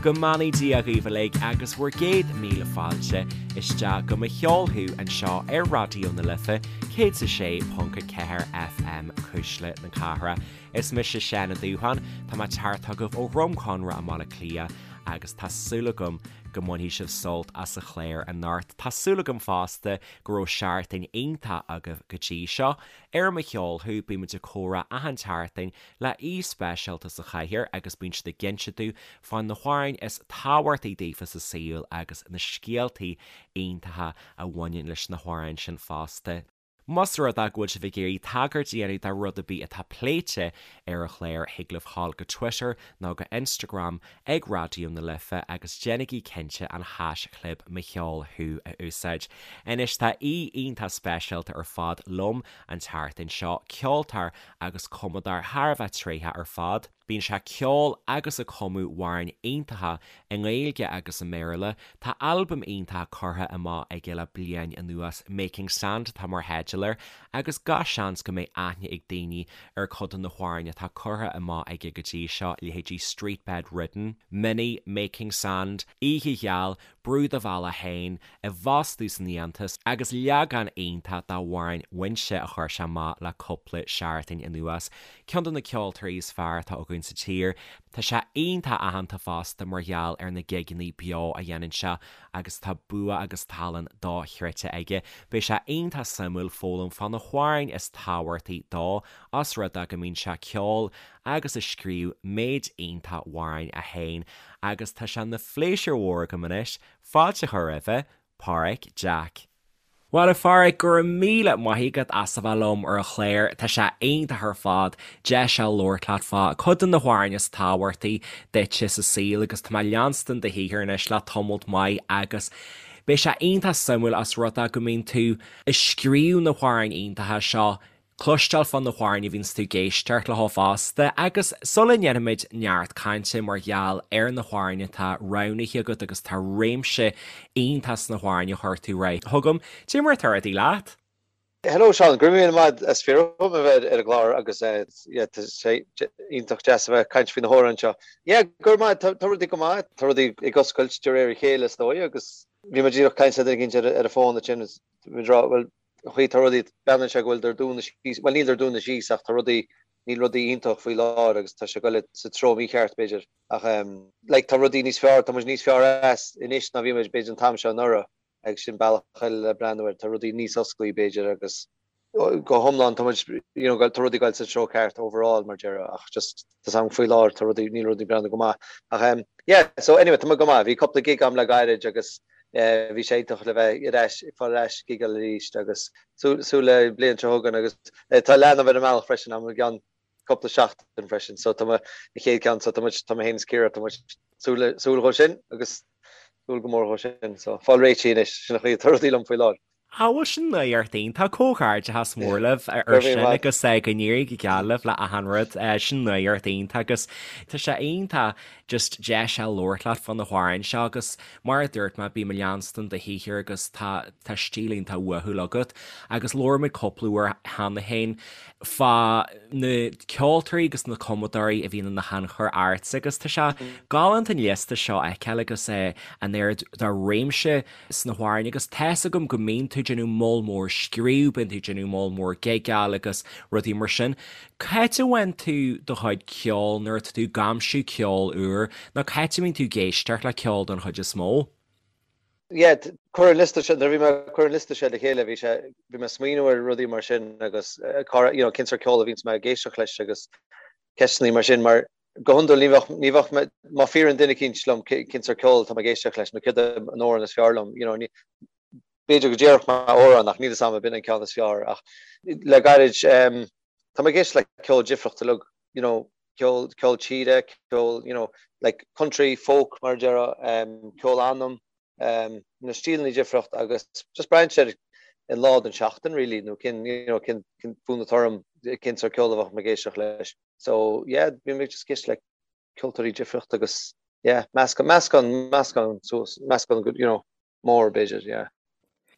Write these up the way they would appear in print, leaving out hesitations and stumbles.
Go mbeannaí Dia dhaoibh uilig agus bhur gcéad míle fáilte isteach go Mo Cheol Thú anseo ar Raidió na Life 106.4 FM, Cuisle na Cathrach. Is mise Seán Ó Dúsháin, tá mé ag teacht chugaibh ó Dhroim Conrach i mBaile Átha Cliath agus tá súil agam go mbainfidh sibh sult as an chlár anocht. Tá súil agam fosta go raibh seachtain iontach agaibh go dtí seo. Ar Mo Cheol Thú, bíonn muid ag comhrá achan tseachtain le aoi speisialta sa chathaoir agus bíonn siad ag inse dúinn fá na hamhráin is tábhachtaí daofa sa saol agus na scéaltaí iontacha a bhaineann leis na hamhráin sin fosta. Más rud é go bhfuil sibh ag iarraidh tagairt a dhéanamh do rud ar bith atá pléite ar an chlár, thig libh dhul go Twitter nó go Instagram ag Raidió na Life agus déanaigí cinnte an haischlib Mo Cheol Thú a úsáid. Anois tá aoi iontach speisialta ar fad liom an tseachtain seo, ceoltóir agus cumadóir thar a bheith tréitheach ar fad. Bíonn sé ag ceol agus ag cumadh amhráin iontacha i nGaeilge agus i mBéarla. Tá albam iontach curtha amach aige le bliain anuas, Making Sand atá mar theideal air, agus gach seans go mbeidh aithne ag daoine ar cuid de na hamhráin atá curtha amach aige go dtí seo, leithéidí Street Bed Ridden, Minnie, Making Sand, Oíche Gheal, Brú do Bhealach Féin, I bhFostú san Fhiántas, agus leagán iontach dá amhrán Muinse a chuir sé amach le cúpla seachtain anuas. Ceann de na ceoltóirí is fearr atá againn sa tír. Tá sé iontach aitheanta fosta mar gheall ar na gigeanna beo a dhéanann sé agus tá bua agus tallann dochreidte aige. Beidh sé iontach suimiúil foghlaim fá na hamhráin is tábhachtaí dó, os rud é go mbíonn sé ag ceol agus ag scríobh méid iontach amhráin é féin agus tá sé ina phléisiúr mhór agam anois fáilte a chur roimhe, Páraic Jack. Bhuel a Pháraic, go raibh míle maith agat as a bheith liom ar an chlár, tá sé iontach ar fad deis a labhairt leat fá cuid de na hamhráin is tábhachtaí duitse sa saol agus tá mé ag leanstan do shaothar anois le tamalt maith agus beidh sé iontach suimiúil os rud é go mbíonn tú ag scríobh na hamhráin iontacha seo cloisteáil fá na hamhráin a bhíonns tú ag éisteacht leo fosta agus sula ndéanfaimid neart cainte mar gheall ar na hamhráin atá roghnaithe agat agus tá réimse iontach sna hamhráin a chuir tú ar aghaidh chugam, cad é mar atá rudaí leat? Hello Seán, go raibh míle maith as fiafraí dhom a bheith ar an gclár agus yeah tá sé iontach deas a bheith ag caint faoi na hamhráin seo. Yeah, go raibh maith, tá rudaí go maith, tá rudaí ag oscailt de réir a chéile is dóigh agus bhí mé díreach ag caint le duine éicint ar an bhfón ansin is bhí mé ag rá bhuel an chaoi tá rudaí, breathnaíonn sé go bhfuil siad ag dúnadh síos, bhuel níl siad ag dúnadh síos ach tá rudaí, níl rudaí iontach faoi láthair agus tá sé ag goil sa treo mícheart b'fhéidir ach like tá rudaí níos fearr, tá muid níos fearr as anois ná bhí muid b'fhéidir an t-am seo anuraidh agus sin bealach eile le breathnú air, tá rudaí níos osclaí b'fhéidir agus go hiomlán tá muid, you know, tá rudaí ag goil sa treo ceart overall mar déarfá ach just tá 's a'm faoi láthair tá rudaí, níl rudaí ag breathnú go maith ach yeah so anyway tá mé go maith, bhí cúpla gig a'm le gairid agus Bhí sé iontach le bheith ar ais, ag fáil ar ais ag gigeáil arís agus súil le bliain seo chugainn agus tá leanbh ar an mbealach freisin agam i gceann cúpla seachtain freisin so tá an chéad ceann so tá muid, tá mé féin is Ciara, tá muid súil súil dhó sin agus súil go mór dhó sin so fáil réitithe anois, sin an chaoi atá rudaí liom faoi láthair. Á bhuel sin nuacht iontach, comhghairdeachas mór libh ar sin agus go n-éirí go geal libh le achan rud, sin nuacht iontach agus tá sé iontach just deis a labhairt leat fá na hamhráin seo agus mar a dúirt mé bím ag leanstan do shaothar agus tá tá stíl iontach uathúil agat agus labhair muid cúpla uair cheana féin fá na ceoltóirí agus na cumadóirí a bhíonn ina thionchar ortsa agus tá sé galánta an liosta seo a fheiceáil agus an oiread de réimse sna hamhráin agus tá's agam go mbíonn tú ag déanamh moll mór scríobh, bíonn tú ag déanamh moll mór gigeáil agus rudaí mar sin. C'áit a bhfaigheann tú do chuid ceoil nuair atá tú ag aimsiú ceol úr nó c'áit a mbíonn tú ag éisteacht le ceol don chuid is mó? Yeah, cur an liosta seo, nuair a bhí mé ag cur an liosta seo le chéile bhí sé, bhí mé ag smaoineamh ar rudaí mar sin agus you know, cén sórt ceol a bhíonns mé ag éisteacht leis agus ceisteanna mar sin mar Go hiondúil, ní bheadh, ní bheadh mé, má fiafraíonn duine eicínt liom cén sórt ceoil atá mé ag éisteacht leis nó céard é an amhrán is fearr liom, you know, ní, b'fhéidir go déarfadh mé amhrán ach níl fhios a'm ab in an ceann is fearr ach le gairid, em, tá mé ag éisteacht le ceol difriúil uilig, you know, ceol, ceol tíre, ceol, you know, like country, folk mar a déarfá, em, ceol anam, em, na stíleanna difriúil agus just braitheann sé ar an lá den seachtain really nó cén, you know, cén, cén fonn atá orm, cén sórt ceol a bheadh mé ag éisteacht leis. So yeah, bím ag just ag éisteacht le ceoltóirí difriúil agus yeah, meascán, meascán, meascán suas, meascán you know, mór b'fhéidir, yeah.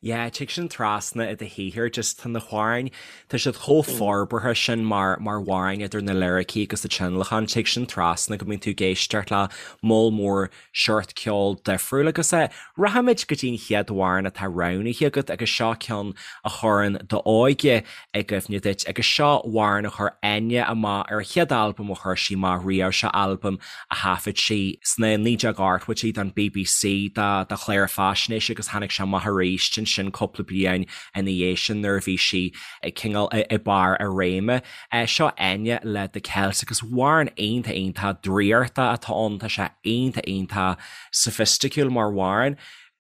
Yeah, tig sin trasna i do shaothar, just tá na hamhráin, tá siad chomh forbartha sin mar mar amhráin idir na liricí agus na tionlacan, tig sin trasna go mbíonn tú ag éisteacht le moll mór seort ceol difriúil agus eh, rachaimid go dtí an chéad amhrán atá roghnaithe agat agus seo ceann a chuireann d'óige i gcuimhne duit agus seo amhrán a chuir Enya amach ar a chéad albam a chuir sí amach riamh, seo albam a thaifead sí sna 1980idí don bbc do chlár faisnéise agus tháinig sé amach arís ansin cúpla bliain ina dhiaidh sin nuair a bhí sí cineál i barr a réime. Seo Enya le The Celt agus amhrán iontach iontach draíochta atá ann, tá sé iontach iontach soifisticiúil mar amhrán.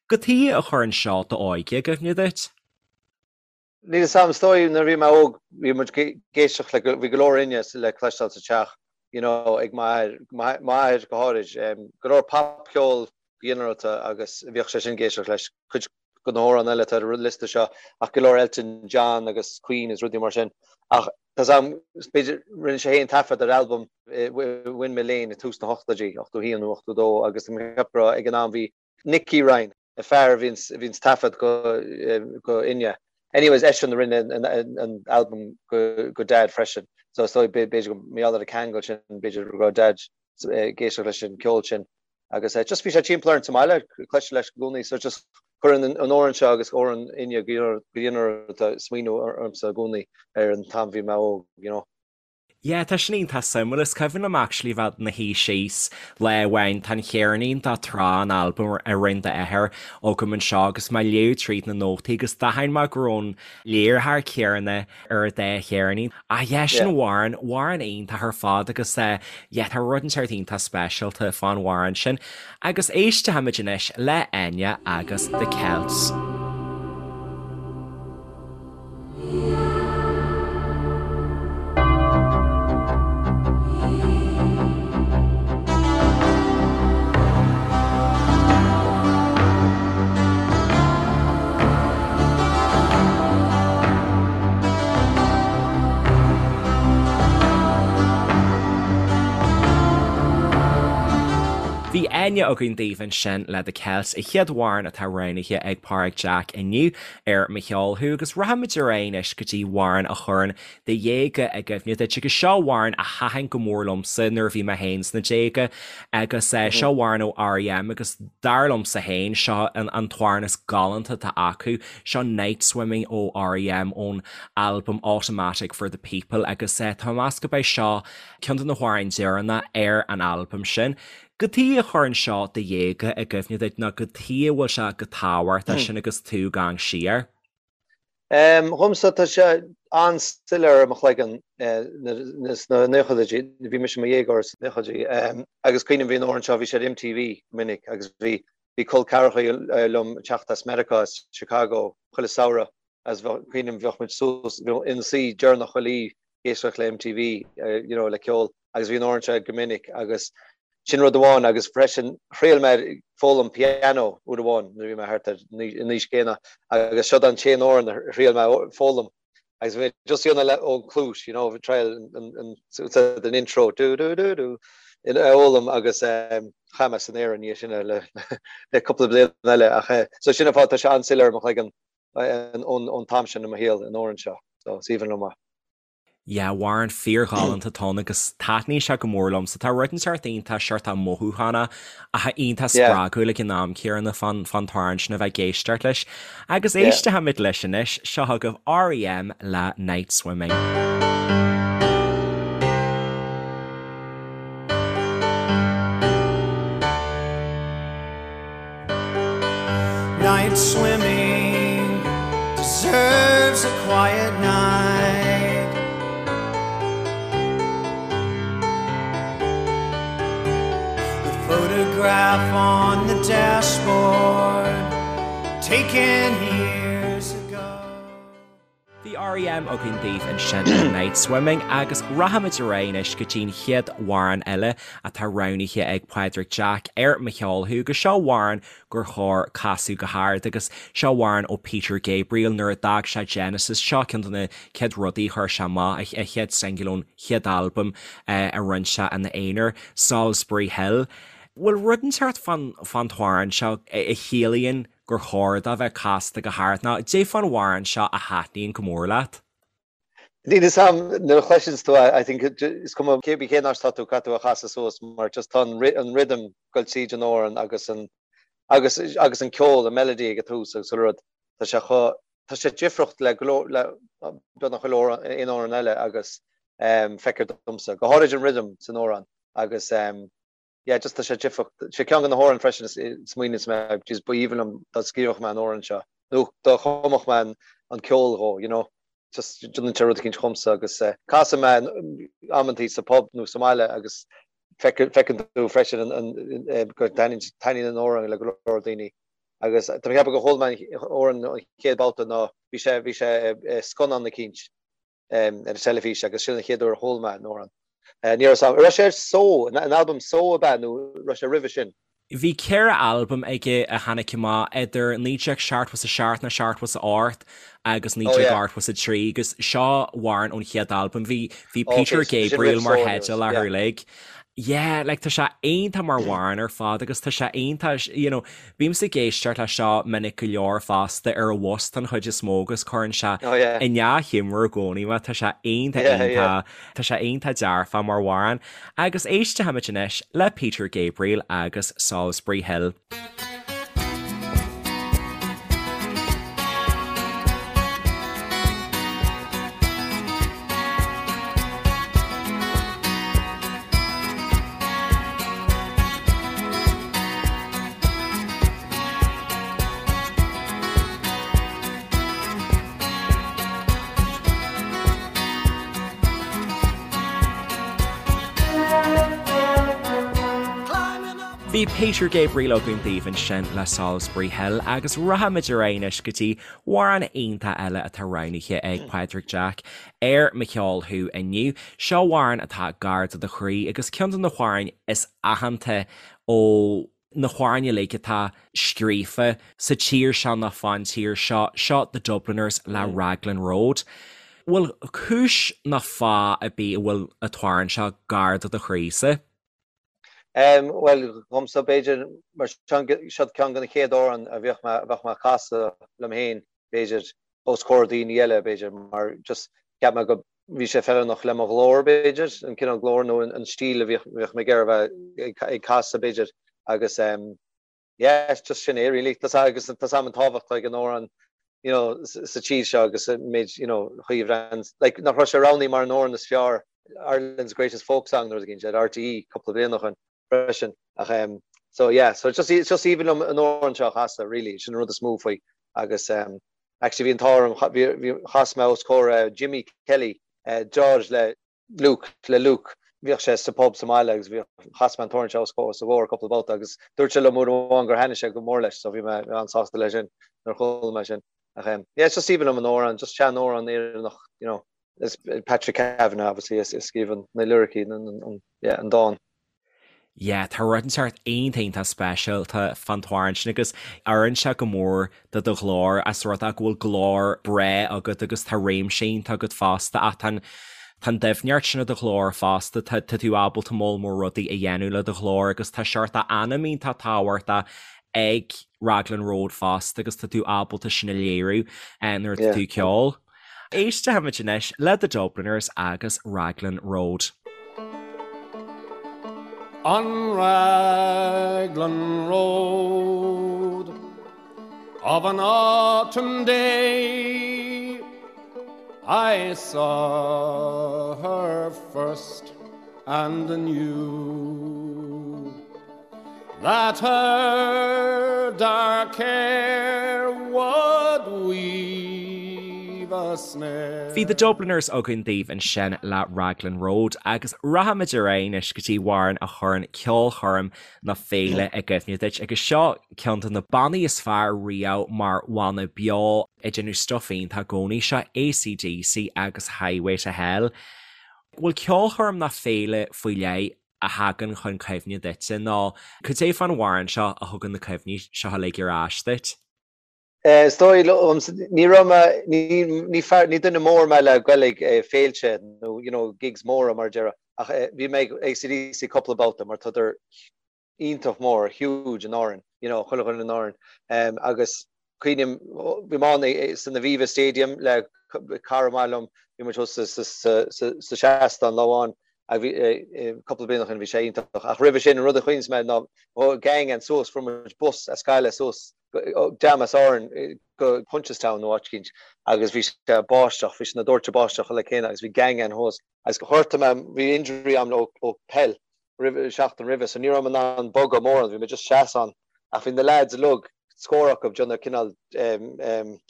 Cad chuige a chuireann seo d'óige i gcuimhne duit? Níl 'fhios a'm, is dóigh nuair a bhí mé óg bhí muid ag éisteacht le, bhí go leor Enya le cloisteáil sa teach, you know, ag m'athair, m'athair go háirid, go leor popcheol go ginearálta agus bhíodh sé sin ag éisteacht leis, cuid de na hamhráin eile atá ar an liosta seo ach go leor Elton John agus Queen is rudaí mar sin. Ach tá 'fhios a'm, b'fhéidir, rinne sé féin taifead ar albam i Windmill Lane i tús na hochtóidí, 81 nó 82 agus tá mé ag ceapadh go raibh ag an am bhí Nicky Ryan, an fear a bhíonns taifead go Enya. Anyways, eisean a rinne an albam go Dad freisin. So is dóigh b'fhéidir go mar gheall ar an ceangal sin, b'fhéidir go raibh Dad ag éisteacht leis an ceol sin. Agus just bhí sé timpeall orainn sa mbaile, cloisteáil leis i gcónaí. So just cuireann an amhrán seo agus amhrán Enya go ginearálta smaoineamh ormsa i gcónaí ar an t-am bhí mé óg, you know. Yeah, tá sin iontach suimiúil. Is cuimhin liom actually bheith ina shuí síos lá amháin, tá an cheirnín de Trá, an albam a rinne d'athair agam anseo agus mé ag léamh tríd na nótaí agus d'aithin mé go raibh an léiritheoir céanna ar an dá cheirnín. Ah yeah, sin amhrán, amhrán iontach ar fad agus eh yeah, tá rud inteacht iontach speisialta fán amhrán sin. Agus éistfimid anois le Enya agus The Celts. Bhí Enya againn daoibh ansin le The Celts, an chéad amhrán atá roghnaithe ag Pádraig Jack inniu. ar Mo Cheol Thú agus rachaimid ar aghaidh anois go dtí amhrán a chuireann do dhéaga i gcuimhne duit agus seo amhrán a thaitin go mór liomsa nuair a bhí mé féin sna déaga agus seo amhrán ó R.E.M. agus dar liomsa féin seo an an t-amhrán is galánta atá acu, seo Night Swimming ó R.E.M. ón albam Automatic for the People agus tá mé ag meas gurb é seo ceann de na hamhráin deireanacha ar an albam sin. Cad chuige a chuireann seo do dhéaga i gcuimhne duit nó cad chuige a bhfuil sé chomh tábhachtach sin agus tú ag amharc siar? Dhomsa tá sé an-soiléir i mo chloigeann sna naochadaidí, bhí mise i mo dhéagóir sna naochadaidí agus cuimhním bhí an amhrán seo, bhí sé ar MTV go minic agus bhí bhí col ceathracha liom ag teacht as Meiriceá, as Chicago, chuile samhradh agus cuimhním bheadh muid suas ina suí deireanach chuile oíche ag éisteacht le MTV you know le ceol agus bhí an amhrán seo go minic agus sin rud amháin agus freisin thriail mé foghlaim piano uair amháin nuair a bhí mé thart ar an aois céanna agus seo an t-aon amhrán a thriail mé foghlaim agus bhí mé just ag déanamh ón cluais you know triail an an intro do do do do a fhoghlaim agus chaith mé san aer ina dhiaidh sin le le cúpla bliain eile ach so sin an fáth tá sé an-soiléir i mo chloigeann ón t-am sin i mo shaol an amhrán seo so is aoibhinn liom é. Yeah, amhrán fíorghalánta atá ann agus taitníonn sé go mór liomsa. Tá rud inteacht iontach seort mothúchánach ach iontach spreagúil ag an am céanna fán fán t-amhrán sin a bheith ag éisteacht leis. Agus éistfimid leis anois, seo chugaibh R.E.M. le Night Swimming. Night swimming deserves a quiet night. The photograph on the dashboard taken years ago. Bhí R.E.M. againn daoibh ansin le Night Swimming agus rachaimid ar aghaidh anois go dtí'n chéad amhrán eile atá roghnaithe ag Pádraig Jack ar Mo Cheol Thú agus seo amhrán gur chóir casadh go hard agus seo amhrán ó Peter Gabriel nuair a d'fhág sé Genesis, seo ceann de na chéad rudaí a chuir sé amach, a chéad singil ón chéad albam a rinne sé ina aonar, Solsbury Hill. Bhfuil rud inteacht fán t-amhrán seo a chiallaíonn? gur chóir dó bheith casta go hard nó caidé fán amhrán seo a thaitníonn go mór leat? Níl fhios a'm, nuair a chloiseanns tú é, I think is cuma cé cén áit atá tú, caithfidh tú a chasadh suas mar just tá an rhythm ag goil tríd an amhrán agus an agus agus an ceol, an melody ag an tús agus chuile rud, tá sé chomh, tá sé difriúil le go leor, le beagnach chuile amhrán, aon amhrán eile agus feictear domsa, go háirid an rhythm san amhrán agus yeah just tá sé difriúil. Sé ceann de na hamhráin freisin is smaoiníonns mé jeez ba aoibhinn liom dá scríobhadh mé an amhrán seo nó dá chumfadh mé an ceol dhó you know. Just déanann sé rud eicínt dhomsa agus casann mé amantaí sa pub nó sa mbaile agus feiceann tú freisin go dtaitníonn an amhrán le go leor daoine. Agus tá mé ag ceapadh gur chuala mé an amhrán an chéad babhta ná bhí sé bhí sé i scannán eicínt. ar an teilifís agus sin an chéad uair a chuala mé an amhrán. Ní raibh a fhios agam, raibh sé ar Só, an albam Só ab ea nó raibh sé roimhe sin? Bhí 4 albam aige a tháinig amach idir 1977 nó 78 agus 1983 agus seo amhrán ón chéad albam. Bhí bhí Peter Gabriel mar theideal air uilig. Yeah, like tá sé iontach mar amhrán ar fad agus tá sé iontach, you know, Bímse ag éisteacht leis seo minic go leor fosta ar an bhus don chuid is mó agus cuireann sé i ndea-ghiúmar i gcónaí mé. Tá sé iontach iontach, tá sé iontach dearfach mar amhrán. Agus éistfimid anois le Peter Gabriel agus Solsbury Hill. Bhí Peter Gabriel againn daoibh ansin le Solsbury Hill agus rachaimid ar aghaidh anois go dtí amhrán iontach eile atá roghnaithe ag Pádraig Jack ar Mo Cheol Thú inniu. Seo amhrán atá gar do do chroí agus ceann de na hamhráin is aitheanta ó na hamhráin uilig atá scríofa sa tír seo nó fán tír seo, seo The Dubliners le Raglan Road. Bhfuil cúis nó fáth ar bith a bhfuil an t-amhrán seo gar do do chroísa? Bhuel, dhomsa, b'fhéidir, mar seo ceann de na chéad amhráin a bheadh mé, a bheadh mé ag casadh liom féin, b'fhéidir, os comhair daoine eile, b'fhéidir, mar just cheap mé go bhí sé feiliúnach le mo ghlór, b'fhéidir, an cineál glór nó an stíl a bhíodh, bhíodh mé ag iarraidh a bheith ag casadh, b'fhéidir, agus yeah, just sin é really. Tá agus tá a fhios agam an tábhacht atá ag an amhrán, you know, sa tír seo agus an méid, you know, chaoi a bhrean, like, nach raibh sé roghnaithe mar an amhrán is fearr, Ireland's Greatest Folk Song nó rud éigin, ar RTÉ cúpla bliain ó shin freisin. Ach um, so yeah, so just, it's just aoibhinn liom an amhrán seo a chasadh, really, sin an rud is mó faoi. Agus um, actually bhí an t-ádh orm, bhí, chas mé os comhair uh, Jimmy Kelly, uh, deartháir le Luke, le Luke, bhíodh sé sa pub sa mbaile agus bhíodh, chas mé an t-amhrán seo os a chomhair cúpla babhta agus dúirt sé liom uair amháin gur thaitnigh sé go mór leis so bhí mé an-sásta leis sin nuair a chuala mé sin. Ach um, yeah, it's just aoibhinn liom an amhrán, just sean-amhrán Éireannach, you know, is Patrick Kavanagh obviously a scríobh na liricí, an, an, yeah, an dán. Yeah, tá rud inteacht iontach iontach speisialta fán t-amhrán sin agus oireann sé go mór do do ghlór as rud é go bhfuil glór breá agat agus tá réimse iontach agat fosta ach tá an tá an doimhneacht sin i do ghlór fosta, tá tá tú ábalta moll mór rudaí a dhéanamh le do ghlór agus tá seort anam iontach tábhachtach ag Raglan Road fosta agus tá tú ábalta sin a léiriú nuair atá tú ag ceol. Éistfimid anois le The Dubliners agus Raglan Road. On Raglan Road of an autumn day I saw her first and knew That her dark hair would weave a snare. Bhí The Dubliners againn daoibh ansin le Raglan Road agus rachaimid ar aghaidh anois go dtí amhrán a chuireann ceolchoirm nó féile i gcuimhne duit agus seo ceann de na bannaí is fearr riamh mar bhanna beo ag déanamh stuif iontach i gcónaí, seo AC/DC agus Highway to Hell. Bhfuil ceolchoirm nó féile faoi leith a thagann chun cuimhne duitse nó cad é fán amhrán seo a thugann na cuimhní seo uilig ar ais duit? Is dóigh liom, ní raibh mé, ní fear, ní duine mór mé le goil ag féilte nó you know gigs móra mar a déarfá ach bhí mé ag AC/DC cúpla babhta mar tádar. iontach mór, huge in Árainn, you know, chuile dhuine in Árainn. Agus cuimhním, bhí mé ann san Aviva Stadium le cara maith liom, bhí muid thuas sa seastán lá amháin, cúpla bliain ó shin, bhí sé iontach. Ach roimhe sin, an rud a chuimhníos mé ná gang againn suas, fuair muid bus as Gaillimh suas, dream as Árainn go Punchestown nó áit eicínt agus bhí sé ag báisteach, bhí sé ina dóirteadh báisteach uile céanna agus bhí gang againn thuas agus ghortaigh mé, bhí injury agam ó peil roimhe, seachtain roimhe so ní raibh mé in ann bogadh mórán, bhí mé just seasamh ann ach bhí na lads uilig, scór acu, déanamh cineál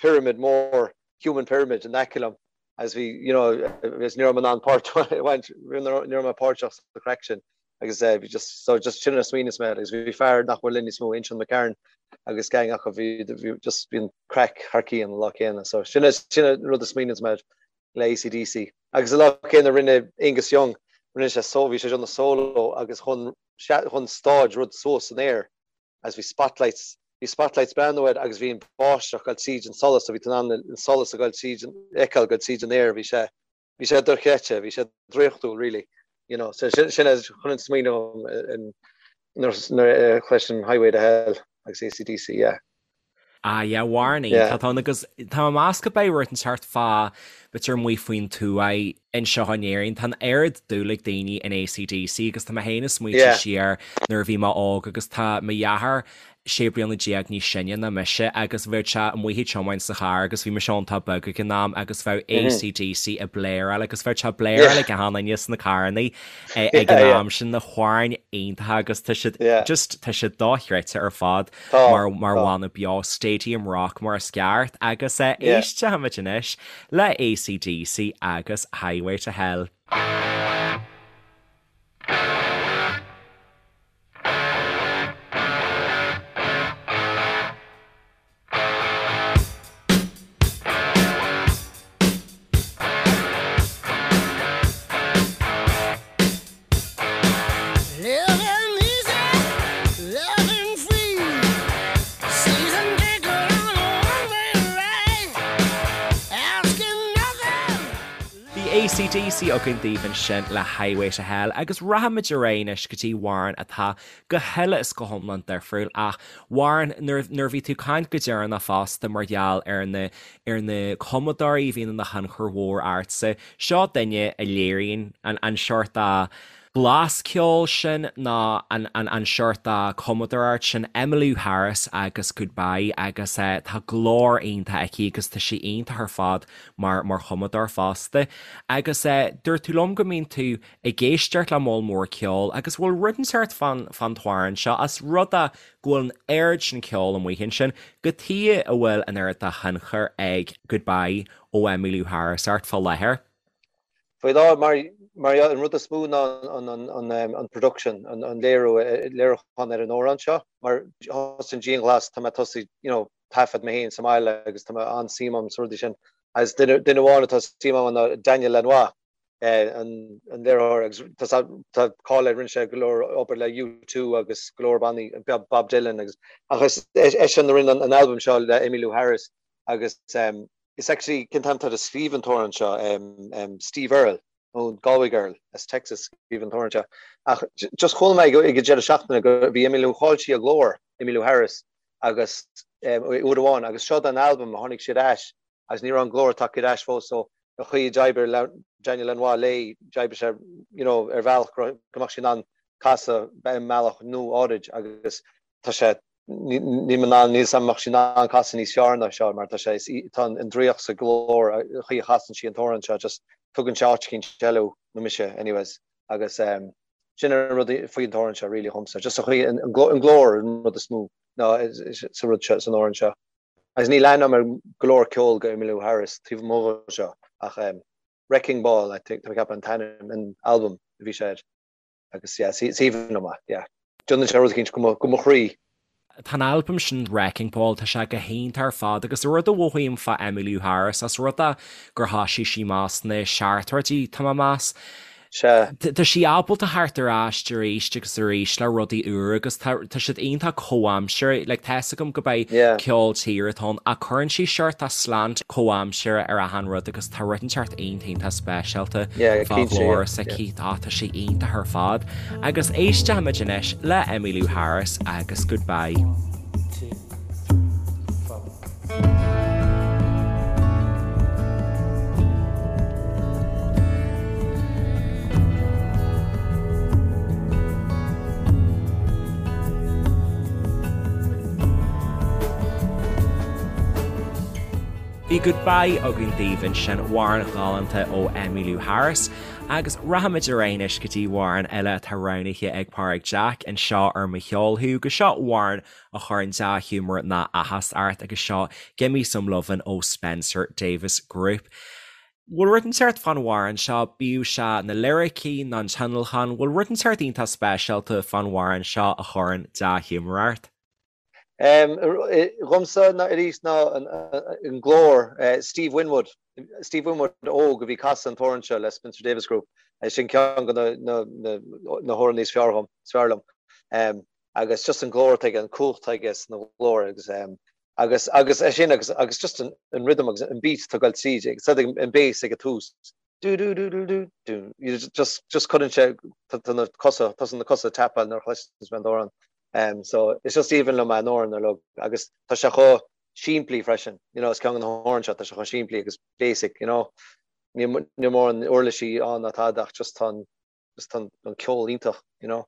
pyramid mór, human pyramid in aice liom agus bhí, you know, agus ní raibh mé in ann páirt a bhaint, ní raibh mé páirteach sa chraic sin agus bhí just, so just sin a smaoineas mé agus bhí fear nach bhfuil linn níos mó, Uinseann McCarron agus gang acu, bhí, bhí just, bhí an craic thar cionn an lá céanna. So sin, sin an rud a smaoineas mé le ACDC. Agus an lá céanna rinne Angus Young, rinne sé so, bhí sé ag déanamh solo agus chun, chun stáid rud suas san aer agus bhí spotlights, bhí spotlights breathnú air agus bhí an báisteach ag dul tríd an solas so bhí tú in ann an solas ag dul tríd an, fheiceáil ag dul tríd an aer, bhí sé, bhí sé dochreidte, bhí sé draíochtúil really, you know, so sin, sin é chun an smaoineamh nuair a chloisim Highway to Hell agus ACDC, yeah. Ah yeah, amhrán iontach ann agus tá mé ag meas go beidh rud inteacht fá b'fhéidir amuigh faoin tuath anseo in Éirinn. Tá an oiread dúil ag daoine in ACDC agus tá mé féin ag smaointiú siar nuair a bhí mé óg agus tá mo dheartháir 16 bliana níos sine ná mise agus bheadh sé amuigh ag tiomáint sa charr agus bhí mise iontach beag ag an am agus bheadh ACDC ag bléaráil agus bheadh sé ag bléaráil ag achan duine sna carrannaí ag an am sin na hamhráin iontacha agus tá siad just tá siad dochreidte ar fad mar mar bhanna beo Stadium Rock mar is ceart agus éistfimid anois le ACDC agus Highway to Hell. Bhí ACDC againn daoibh ansin le Highway to Hell agus rachaimid ar aghaidh anois go dtí amhrán atá go huile is go hiomlán difriúil ach amhrán nuair nuair a bhí tú ag caint go deireanach fosta mar gheall ar na ar na cumadóirí a bhíonn ina thionchar mhór ortsa, seo duine a léiríonn an an seort de blas ceoil sin nó an an an seort de cumadóireacht sin, Emmylou Harris agus Goodbye agus tá glór iontach aici agus tá sí iontach ar fad mar mar chumadóir fosta. Agus dúirt tú liom go mbíonn tú ag éisteacht le moll mór ceoil agus bhfuil rud inteacht fán fán t-amhrán seo as rud é go bhfuil an oiread sin ceoil amuigh ansin, cad chuige a bhfuil an oiread de thionchar ag Goodbye ó Emmylou Harris ort fá láthair. Faoi láthair, mar mar an rud is mó ná an an an production, an an léiriú, léiriúchán ar an amhrán seo, mar thosaigh an dianghlas, tá mé tosaithe, you know, taifead mé féin sa mbaile agus tá mé an-suim agam sna rudaí sin. Agus duine duine amháin atá suim agam ná Daniel Lanois, an léiritheoir agus tá cáil air, rinne sé go leor obair le U2 agus go leor bannaí, Bob Dylan agus ach is eisean a rinne an albam seo le Emmylou Harris agus is actually cén t-ainm atá air a scríobh an t-amhrán seo, Steve Earle nó Galway Girl as Texas scríobh an t-amhrán seo ach just chuala mé ag an deireadh seachtaine go bhí Emmylou chaill sí a glór, Emmylou Harris agus uair amháin agus seo don albam a tháinig sí ar ais agus ní raibh an glór tagtha ar ais fós so an chaoi a d'oibrigh Daniel Lanois léi, d'oibrigh sé you know ar bhealach go mbeadh sí in ann casadh i mbealach nua áirid agus tá sé níl mé in ann, níl 's agam an mbeadh sí in ann casadh níos fearr ná seo mar tá sé, tá an draíocht sa ghlór, an chaoi a chasann sí an t-amhrán seo just tugann sé áit eicínt eile thú, nó mise anyways agus um, sin an rud faoin t-amhrán seo really dhomsa, just an chaoi an glór an rud is mó ná sa rud seo san amhrán seo. Agus níl aithne agam ar go leor ceol go Emmylou Harris taobh amuigh de seo ach Wrecking Ball I think tá mé ag ceapadh an t-ainm an albam a bhí sé air agus yeah is aoibhinn liom é yeah. Déanann sé rud eicínt go mo chroí. Tá an albam sin Wrecking Ball, tá sé go hiontach ar fad agus rud a mhothaím fá Emmylou Harris, as rud é gur thoisigh sí amach sna seachtóidí, tá mé ag meas. Sea. Tá sí ábalta theacht ar ais arís agus arís le rudaí úra agus tá tá siad iontach comhaimseartha, like tá fhios agam go beidh Yeah. ceol tíre atá ann ach cuireann sí seort de slant comhaimseartha ar achan rud agus tá rud inteacht iontach iontach speisialta Yeah, fá cinnte, ghlór yeah, s'aici. Tá tá sí iontach ar fad agus éistfimid anois le Emmylou Harris agus Goodbye. Bhí Goodbye againn daoibh ansin, amhrán galánta ó Emmylou Harris, agus rachaimid ar aghaidh anois go dtí amhrán eile atá roghnaithe ag Pádraig Jack anseo ar Mo Cheol Thú, agus seo amhrán a chuireann dea-ghiúmar ná áthas ort agus seo Gimme Some Lovin' ó Spencer Davis Group. Bhfuil rud inteacht fán amhrán seo, bíodh sé na liricí ná an tionlacan, bhfuil rud inteacht iontach speisialta fán amhrán seo a chuireann dea-ghiúmar ort? Dhomsa ná arís ná an glór Steve Winwood, Steve Winwood óg a bhí ag casadh an t-amhrán seo le Spencer Davis Group, sin ceann de na hamhráin is fearr dhom, is fearr liom. agus just an glór atá aige, an cumhacht atá aige sna ghlór agus ehm agus agus é sin agus agus just an an rhythm agus an beat atá ag goil tríd agus an bass ag an tús dú dú dú dú dú dú you just just cuireann sé tá na cosa tosaíonn na cosa ag tapáil nuair a chloiseann mé an t-amhrán um so it's just aoibhinn liom an amhrán uilig agus tá sé chomh simplí freisin you know is ceann de na hamhráin seo tá sé chomh simplí agus basic you know níl níl mórán uirlisí ann ná tada ach just tá an just tá an ceol iontach you know.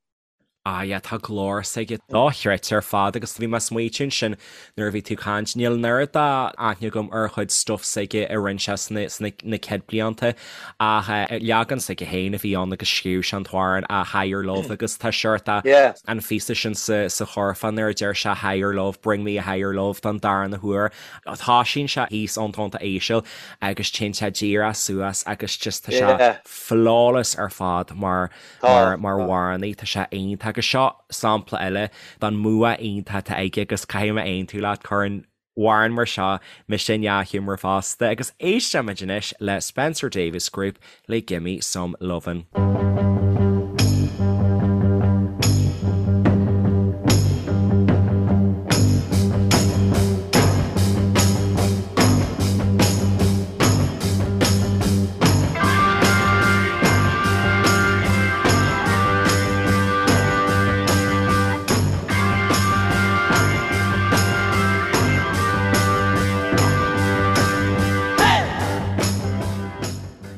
Ah yeah, tá glór s'aige dochreidte ar fad agus bhí mé ag smaoitiú ansin nuair a bhí tú ag caint, níl an oiread d'aithne agam ar chuid stuff s'aige a rinne sé sna sna na céad blianta ach eh leagan s'aige féin a bhí ann agus scríobh sé an t-amhrán a Higher Love agus tá seort a Yeah. an phíosa sin sa sa churfá nuair a deir sé Higher Love, bring me a higher love don darna huair. Toisíonn sé thíos ón tónta íseal agus téann sé díreach suas agus just tá sé Yeah. flawless ar fad mar Tá, mar tá. amhránaí, tá sé iontach agus seo sampla eile den mbua iontach atá aige agus caithfidh mé aontú leat, cuireann amhrán mar seo mise i ndea-ghiúmar fosta agus éistfimid anois le Spencer Davis Group le Gimme Some Lovin'.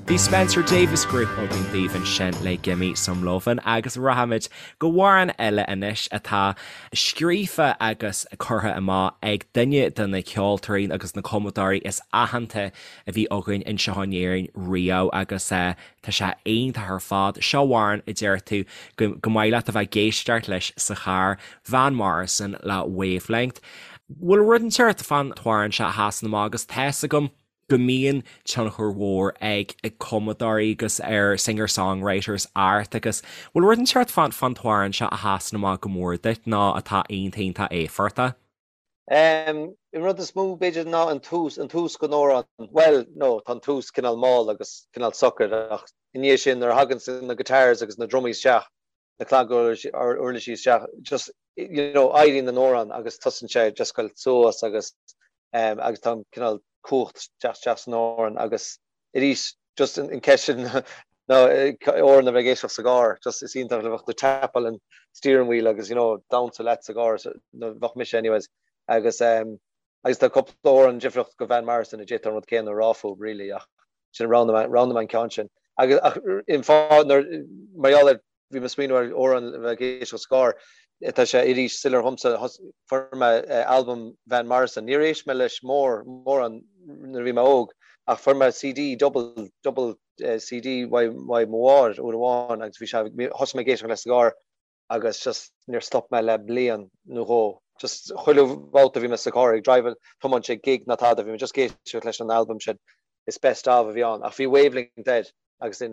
Bhí Spencer Davis Group againn daoibh ansin le Gimme Some Lovin' agus rachaimid go hamhrán eile anois atá scríofa agus curtha amach ag duine de na ceoltóirí agus na cumadóirí is aitheanta a bhí againn anseo in Éirinn riamh agus tá sé iontach ar fad. Seo amhrán a deir tú go go mbeidh leat a bheith ag éisteacht leis sa charr, Van Morrison le Wavelength. Bhfuil rud inteacht fán t-amhrán seo a sheasann amach agus tá fhios agam go mbíonn tionchar mhór ag ag cumadóirí agus ar singer-songwriters ort agus bhfuil rud inteacht fán fán t-amhrán seo a sheasann amach go mór duit nó atá iontach iontach éifeachtach? An rud is mó b'fhéidir ná an tús, an tús den amhrán, bhuel, no, tá an tús cineál mall agus cineál socair ach i ndiaidh sin nuair a thagann na guitars agus na drumaí isteach, na claguirlisí isteach, just, you know, éiríonn an amhrán agus tosaíonn sé just goil suas agus, agus tá an cineál cumhacht isteach isteach san amhrán agus arís just an ceist sin ná amhrán a bheith ag éisteacht sa gcarr, just is iontach le bheith ag tapáil an steering wheel agus you know damhsa leat sa gcarr, nó bheadh mise anyways agus um, agus tá cúpla amhrán difriúil go Van Morrison a d'fhéadfá an rud céanna a rá fúthu really ach sin roghnaigh mé an ceann sin. Agus ach an fáth nuair mar gheall ar Bhí mé ag smaoineamh ar amhrán le bheith ag éisteacht sa gcarr. Tá sé arís soiléir dhomsa, fuair mé albam Van Morrison. Níor éist mé leis mór, mórán nuair a bhí mé óg ach fuair mé CD, double, double CD uaidh mo mháthair uair amháin agus bhí sé, thosaigh mé ag éisteacht leis sa gcarr agus just níor stop mé le bliain nó dhó. Just chuile bhabhta a bhí mé sa charr ag drive, tiomáint ag gig ná tada, bhí mé just ag éisteacht leis an albam sin. Is best of a bhí ann ach bhí Wavelength air. agus de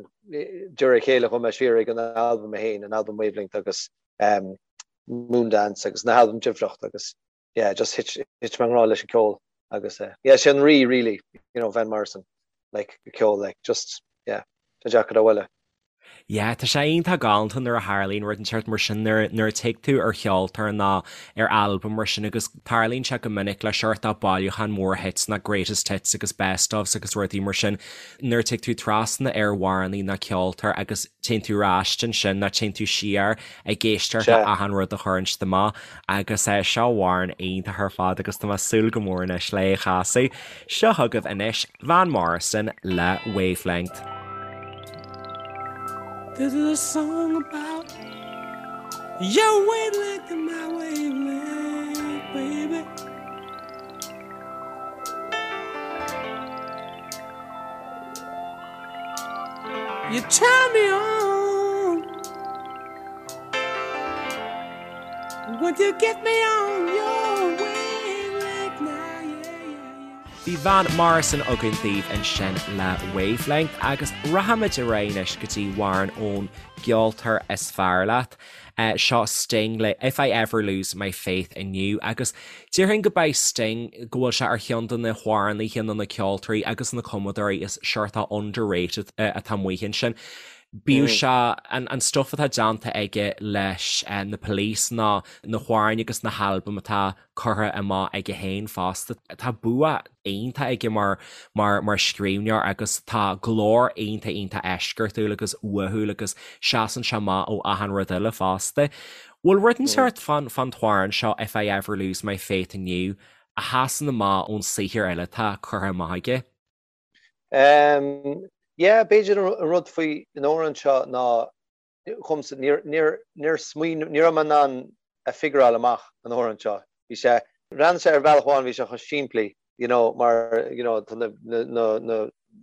réir a chéile chuaigh mé siar ag an albam é féin, an albam Wavelength agus um, Moondance agus na halbaim difriúla agus yeah, just thit, thit mé i ngrá leis an ceol agus uh, yeah, sé an rí really, you know, Van Morrison, like ceol, like just yeah, tá deacair a bhualadh. Yeah, tá sé iontach galánta nuair a tharlaíonn rud inteacht mar sin, nuair nuair a tig tú ar cheoltóir nó ar albam mar sin agus tarlaíonn sé go minic le seort bailiúchán mór hits nó greatest hits agus best ofs agus rudaí mar sin, nuair a tig tú trasna ar amhránaí nó ceoltóir agus téann tú ar ais ansin nó téann tú siar ag éisteacht le achan rud a chuireann siad amach agus seo amhrán iontach ar fad agus tá mé ag súil go mór anois le é a chasadh. Seo chugaibh anois Van Morrison le Wavelength. This is a song about your wavelength and my wavelength, baby. You turn me on Would you get me on your wavelength now, yeah, yeah, yeah. Bhí Van Morrison againn daoibh ansin le Wavelength agus rachaimid ar aghaidh anois go dtí amhrán ón gceoltóir is fearr leat. Seo Sting le If I Ever Lose My Faith In You agus déarfainn go beidh Sting, go bhfuil sé ar cheann de na hamhránaithe nó na ceoltóirí agus na cumadóirí is seort underrated atá amuigh ansin. Bíodh sé an stuff atá déanta aige leis na Police nó na hamhráin agus na halbaim atá curtha amach aige féin fosta. Tá bua iontach aige mar mar mar scríbhneoir agus tá glór iontach iontach eisceachtúil agus uathúil agus seasann sé amach ó achan rud eile fosta. Bhfuil rud inteacht fán fán t-amhrán seo If I Ever Lose My Faith In You a sheasann amach ón saothar eile atá curtha amach aige? Um, yeah, b'fhéidir an rud faoi an amhrán seo ná dhomsa, níor, níor, níor smaoin, ní raibh mé in ann a figureáil amach an amhrán seo. Bhí sé, bhreathnaigh sé ar bhealach amháin, bhí sé chomh simplí, you know, mar, you know, tá na, na, na, na,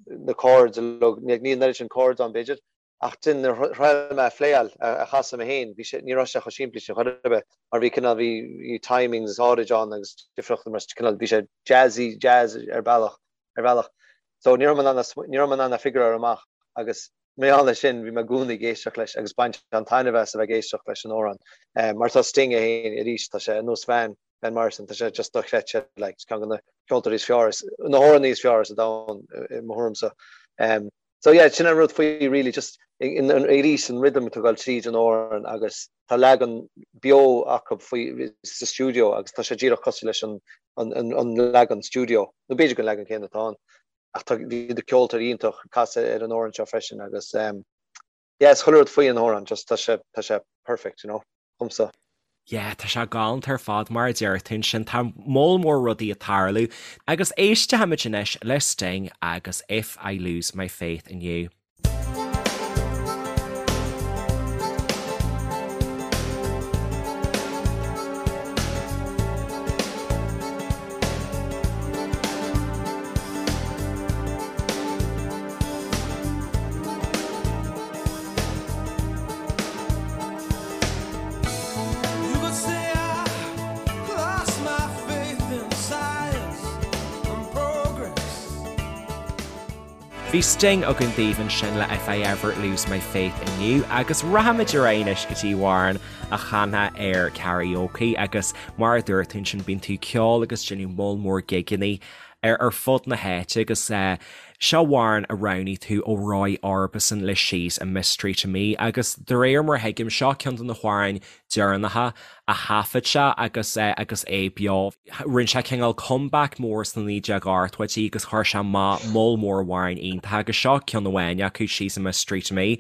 na chords uilig, ní, níl an oiread sin chords ann b'fhéidir, ach then nuair a thriail mé a phléáil, a, a chasadh mé féin, bhí sé, ní raibh sé chomh simplí sin chor ar bith, mar bhí cineál, bhí, bhí timings áirid ann agus difríochtaí mar cineál, bhí sé jazzy, jazz ar bealach, ar bhealach. So ní raibh mé in ann, ní raibh mé in ann a figureáil amach agus mar gheall air sin bhí mé i gcónaí ag éisteacht leis agus baint an-taitneamh as a bheith ag éisteacht leis an amhrán. Mar tá Sting é féin arís, tá sé ar nós Van, Van Morrison, tá sé just dochreidte, like, ceann de na ceoltóirí is fearr, na hamhránaithe is fearr sa domhan i mo thuairimse. So yeah, sin an rud faoi really, just arís an rhythm atá ag dul tríd an amhrán agus tá leagan beo acu faoi sa stiúideo agus tá sé díreach cosúil leis an an leagan stiúideo, nó b'fhéidir gur an leagan céanna atá ann. Ach tá bhí na ceoltóirí iontach ag casadh ar an amhrán seo freisin agus yeah, is chuile rud faoi an amhrán, just tá sé tá sé perfect, you know, dhomsa. Yeah, tá sé galánta ar fad mar a deir tú ansin, tá moll mór rudaí ag tarlú. Agus éistfimid anois le Sting agus If I Lose My Faith In You. You could say I lost my faith in science and progress. Bhí Sting againn daoibh ansin le If I Ever Lose My Faith In You agus rachaimid ar aghaidh anois go dtí amhrán a chanfá ar karaoke agus mar a dúirt tú ansin bíonn tú ag ceol agus déanamh moll mór gigeannaí ar ar fud na háite agus seo amhrán a roghnaigh tú ó Roy Orbison le She's a Mystery to Me agus de réir mar a thuigim seo ceann de na hamhráin deireanacha a thaifead sé agus agus é beo. Rinne sé cineál comeback mór sna 1980idí agus chuir sé amach moll mór amhráin iontacha agus seo ceann amháin acu, She's a Mystery to Me.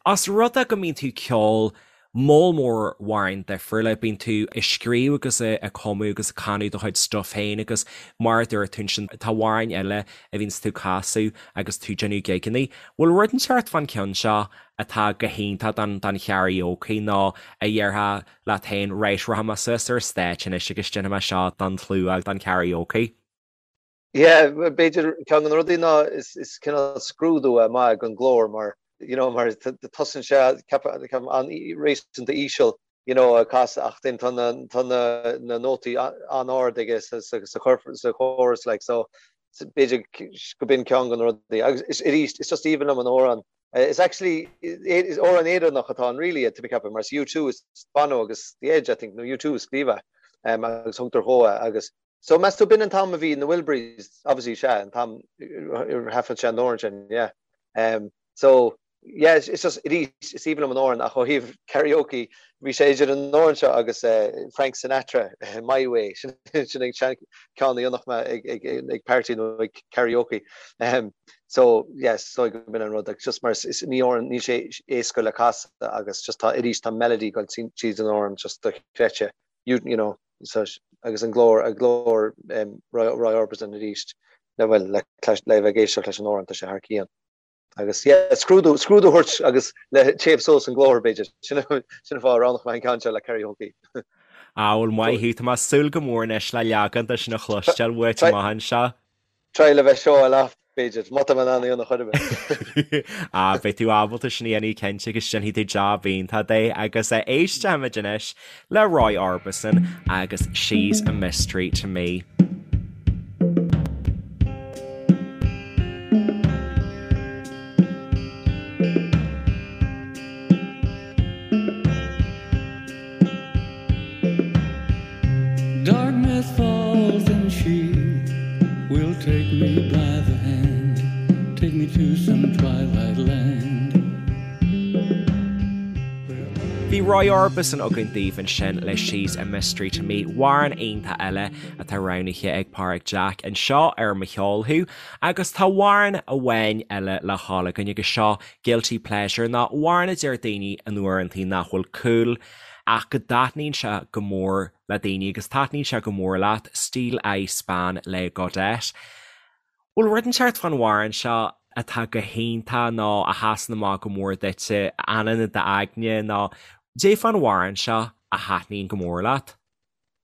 Os rud é go mbíonn tú ag ceol moll mór amhráin difriúla, bíonn tú ag scríobh agus ag cumadh agus ag canadh do chuid stuff féin agus mar a dúirt tú ansin tá amhráin eile a bhíonns tú ag casadh agus tú ag déanamh gigeannaí. Bhfuil rud inteacht fán ceann seo atá go hiontach don don karaoke nó a dhéarfá leat féin right rachaidh mé suas ar stáitse anois agus déanfaidh mé seo don tslua don karaoke. Yeah, b'fhéidir ceann de na rudaí ná is is cineál scrúdú é maith don ghlór mar you know mar tosaíonn sé ceapaim an-réasúnta íseal you know ag casadh ach then tá na tá na na nótaí an-ard aige sa sa sa sa chorus like so b'fhéidir go b'in ceann de na rudaí agus is arís is just aoibhinn liom an amhrán Is actually is amhrán Éireannach atá ann really tá mé ag ceapadh mar is U2 is Bono agus The Edge I think nó U2 a scríobh é agus thugtar dhó é agus so meas tú b'in an t-am a bhí na Wilburys obviously sea an t-am ar thaifead sé an amhrán sin yeah. Um, so. Yeah, it's just, arís, is aoibhinn liom an amhrán ach ó thaobh karaoke, bhí sé idir an amhrán seo agus Frank Sinatra, My Way, sin an ceann a dhéanfadh mé ag party nó ag karaoke. So, yes, so go b'in an rud, like, just mar is ní amhrán, níl sé éasca le casadh agus just tá, arís, tá melody ag dul tríd an amhrán just dochreidte, you, you know, so, agus an glór, an glór Roy, Roy Orbison arís, le, bhuel, le, le bheith ag éisteacht leis an amhrán, tá sé thar cionn. Agus yeah, scrúdú, scrúdú a thabhairt agus le téamh suas an glór b'fhéidir. Sin an fáth a roghnódh mé an ceann seo le karaoke. Ah, bhuel maith thú, tá mé ag súil go mór anois le leagan de sin a chloisteáil uait amach anseo. Try le bheith show off b'fhéidir, má tá mé in ann é a dhéanamh chor ar bith. Ah, beidh tú ábalta sin a dhéanamh cinnte agus déanfaidh tú jab iontach de agus éistfimid anois le Roy Orbison agus She's a Mystery to Me. Darkness falls and she will take me by the hand, take me to some twilight land. Bhí Roy Orbison againn daoibh ansin le She's a Mystery to Me, amhrán iontach eile atá roghnaithe ag Páraic Jack anseo ar Mo Cheol Thú. Agus tá amhrán amháin eile le dhul againn agus seo Guilty Pleasure nó amhrán a deir daoine in uaireantaí nach bhfuil cool ach go dtaitníonn sé go mór le daoine agus taitníonn sé go mór leat, Steeleye Span le Godet. Bhfuil rud inteacht fán amhrán seo atá go hiontach nó a sheasann amach go mór duitse, a fhanann i d'aigne nó cad é fán amhrán seo a thaitníonn go mór leat?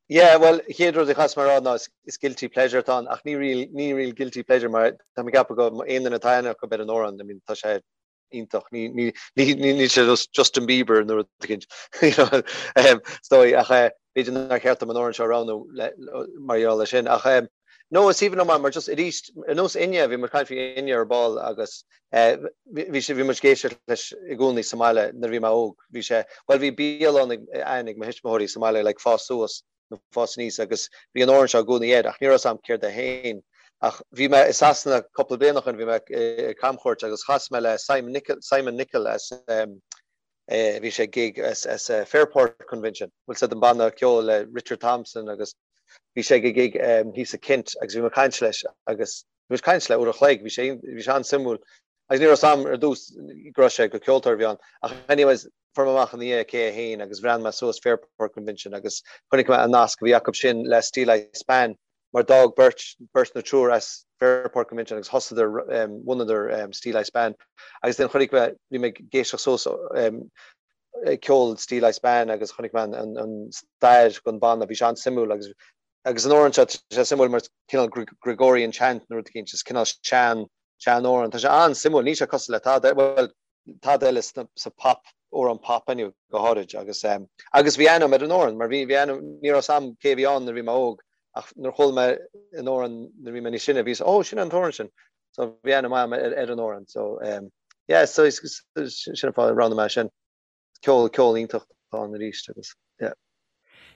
Yeah, bhuel, an chéad rud a chaithfeas mé a rá ná is guilty pleasure atá ann ach ní real, ní real guilty pleasure mar tá mé ag ceapadh go aon duine atá aithne acu ar an amhrán, I mean, tá sé iontach. Ní níl sé Justin Bieber nó rud éicint is dóigh ach b'fhéidir nár cheart dom an amhrán seo a roghnú mar gheall air sin. Ach no, is aoibhinn liom mar just arís ar nós Enya, bhí muid ag caint faoi Enya ar ball agus bhí sé bhí muid ag éisteacht leis i gcónaí sa mbaile nuair a bhí mé óg. Bhí sé, bhuel bhí bialann ag mo thuismitheoirí sa mbaile like fás suas nó fás aníos agus bhí an amhrán seo i gcónaí air ach ní raibh 'fhios a'm céard é féin. Ach bhí mé i Sasana cúpla bliain ó shin, bhí mé ar camchuairt agus chas mé le Simon Nicol, Simon Nicol as eh, bhí sé ag gig as, as eh, Fairport Convention, bhfuil 'fhios a'd an banna ceoil le Richard Thompson agus bhí sé ag gig um, thíos i Kent agus bhí mé ag caint leis agus bhí mé ag caint le uair a chloig, bhí sé, bhí sé an-suimiúil agus ní raibh 'fhios a'm ar dtús go raibh sé gur ceoltóir a bhí ann ach anyways fuair mé amach ina dhiaidh cé é féin agus bhreathnaigh mé suas Fairport Convention agus chonaic mé an nasc a bhí acu sin le Steeleye Span mar d'fhág beirt, beirt nó triúr as Fairport Convention agus thosaíodar, bhunadar Steeleye Span agus then chonaic mé, bhí mé ag éisteacht suas ceol Steeleye Span agus chonaic mé an, an stair den bhanna, bhí sé an-suimiúil agus agus an amhrán seo, tá sé suimiúil mar cineál Gregorian chant nó rud éicint, is cineál sean, sean amhrán, tá sé an-suimiúil, níl sé cosúil le tada, bhuel, tada eile sa pop, amhrán pop anyway, go háirid agus agus bhí aithne agam ar an amhrán mar bhí bhí aithne ní raibh 'fhios a'm cé a bhí ann nuair a bhí mé óg ach nuair a chuala mé an amhrán nuair a bhí mé níos sine bhí ó sin an t-amhrán sin so bhí aithne maith agam ar ar an amhrán so um, yeah so sin an fáth a roghnaigh mé sin ceol ceol iontach atá ann arís agus yeah.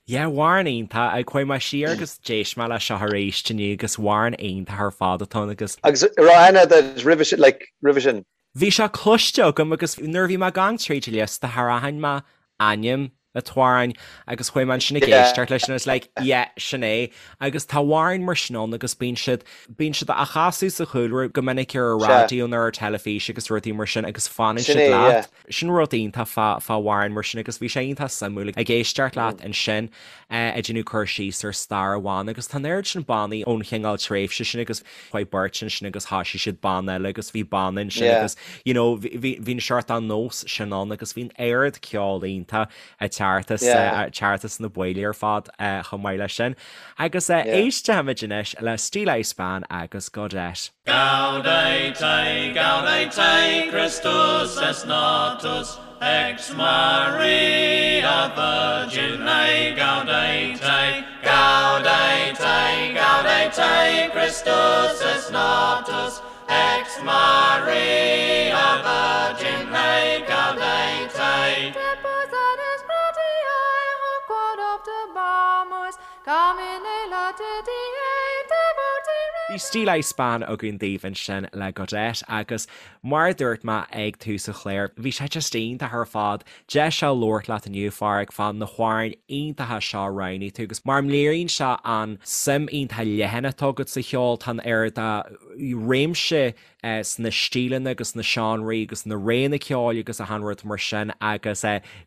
Yeah, amhrán iontach. Chuaigh mé siar agus d'éist mé leis seo arís inniu agus amhrán iontach ar fad atá ann agus. Agus raibh aithne agat roimhe sin, like, roimhe sin? Bhí sé cloiste agam agus nuair a bhí mé ag gabháil tríd an liosta char aithin mé ainm an t-amhráin agus chuaigh mé ansin ag éisteacht leis and I was like, yeah, sin é. Agus tá amhráin mar sin ann agus bíonn siad, bíonn siad á chasadh sa chúlra go minic ar an raidió nó ar an teilifís agus rudaí mar sin agus fanann siad leat. Sin rud iontach fá amhráin mar sin agus bhí sé iontach suimiúil ag éisteacht leat ansin ag déanamh cur síos ar stair an bhanna agus tá an oiread sin bannaí ón chineál tréimhse sin agus chuaigh beirt ansin agus thosaigh siad banna eile agus bhí banna ansin agus you know bhí bhí an seort an nós sin ann agus bhí an oiread ceol iontach ag teacht as ag teacht as na baill ar fad chomh maith leis sin. Agus éistfimid anois le Steeleye Span agus Godet. Gaudete, gaudete, Christus est natus, ex Maria Virgine, gaudete, gaudete, gaudete, Christus est natus, ex Maria Virgine, gaudete. Depositus gratiae hoc quod optabamus, Domine laetitia devoti. Bhí Steeleye Span againn daoibh ansin le Godet agus mar a dúirt mé ag tús an chláir, bhí sé just iontach ar fad deis a labhairt leat inniu, a Pháraic, fá na hamhráin iontacha seo a roghnaigh tú agus mar léiríonn sé an suim iontach leathan atá agat sa cheol, tá an oiread de réimse sna stíleanna agus na seánraí agus na réanna ceoil agus achan rud mar sin agus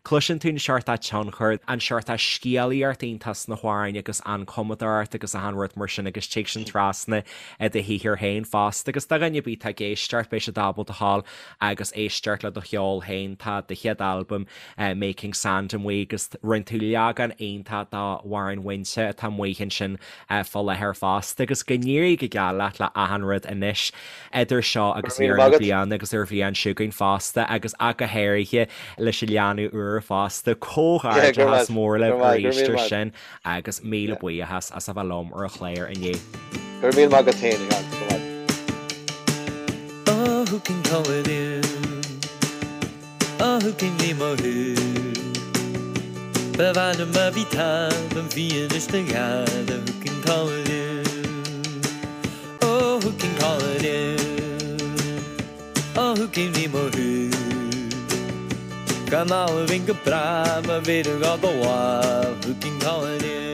cloiseann tú an seort tionchar, an seort scéalaíocht iontach sna hamhráin agus an cumadóireacht agus achan rud mar sin agus tig sin trasna i do shaothar féin fosta agus do dhuine ar bith atá ag éisteacht beidh siad ábalta a ghabháil agus éisteacht le do cheol féin. Tá do chéad albam Making Sand amuigh agus rinne tú leagan iontach d'amhrán Mhuinte atá amuigh ansin fá láthair fosta agus go n-éirí go geal leat le achan rud anois idir seo agus deireadh na bliana agus ar bhliain seo chugainn fosta agus ach go háirithe leis an leanbh úr fosta. Comhghairdeachas mór libh arís ar sin agus míle buíochas as a bheith liom ar an chlár inniu. Go raibh míle maith agat féin, a Sheáin. Go raibh maith. Oh, who can call it in? Oh, who can name a who? Ba mhaith liom a bhí tall an bhí anois na gheala Who can call it in? Oh, who can call it in? Oh, who can name a who? Gan ábhín go breá má bhí gá do Who can call it in?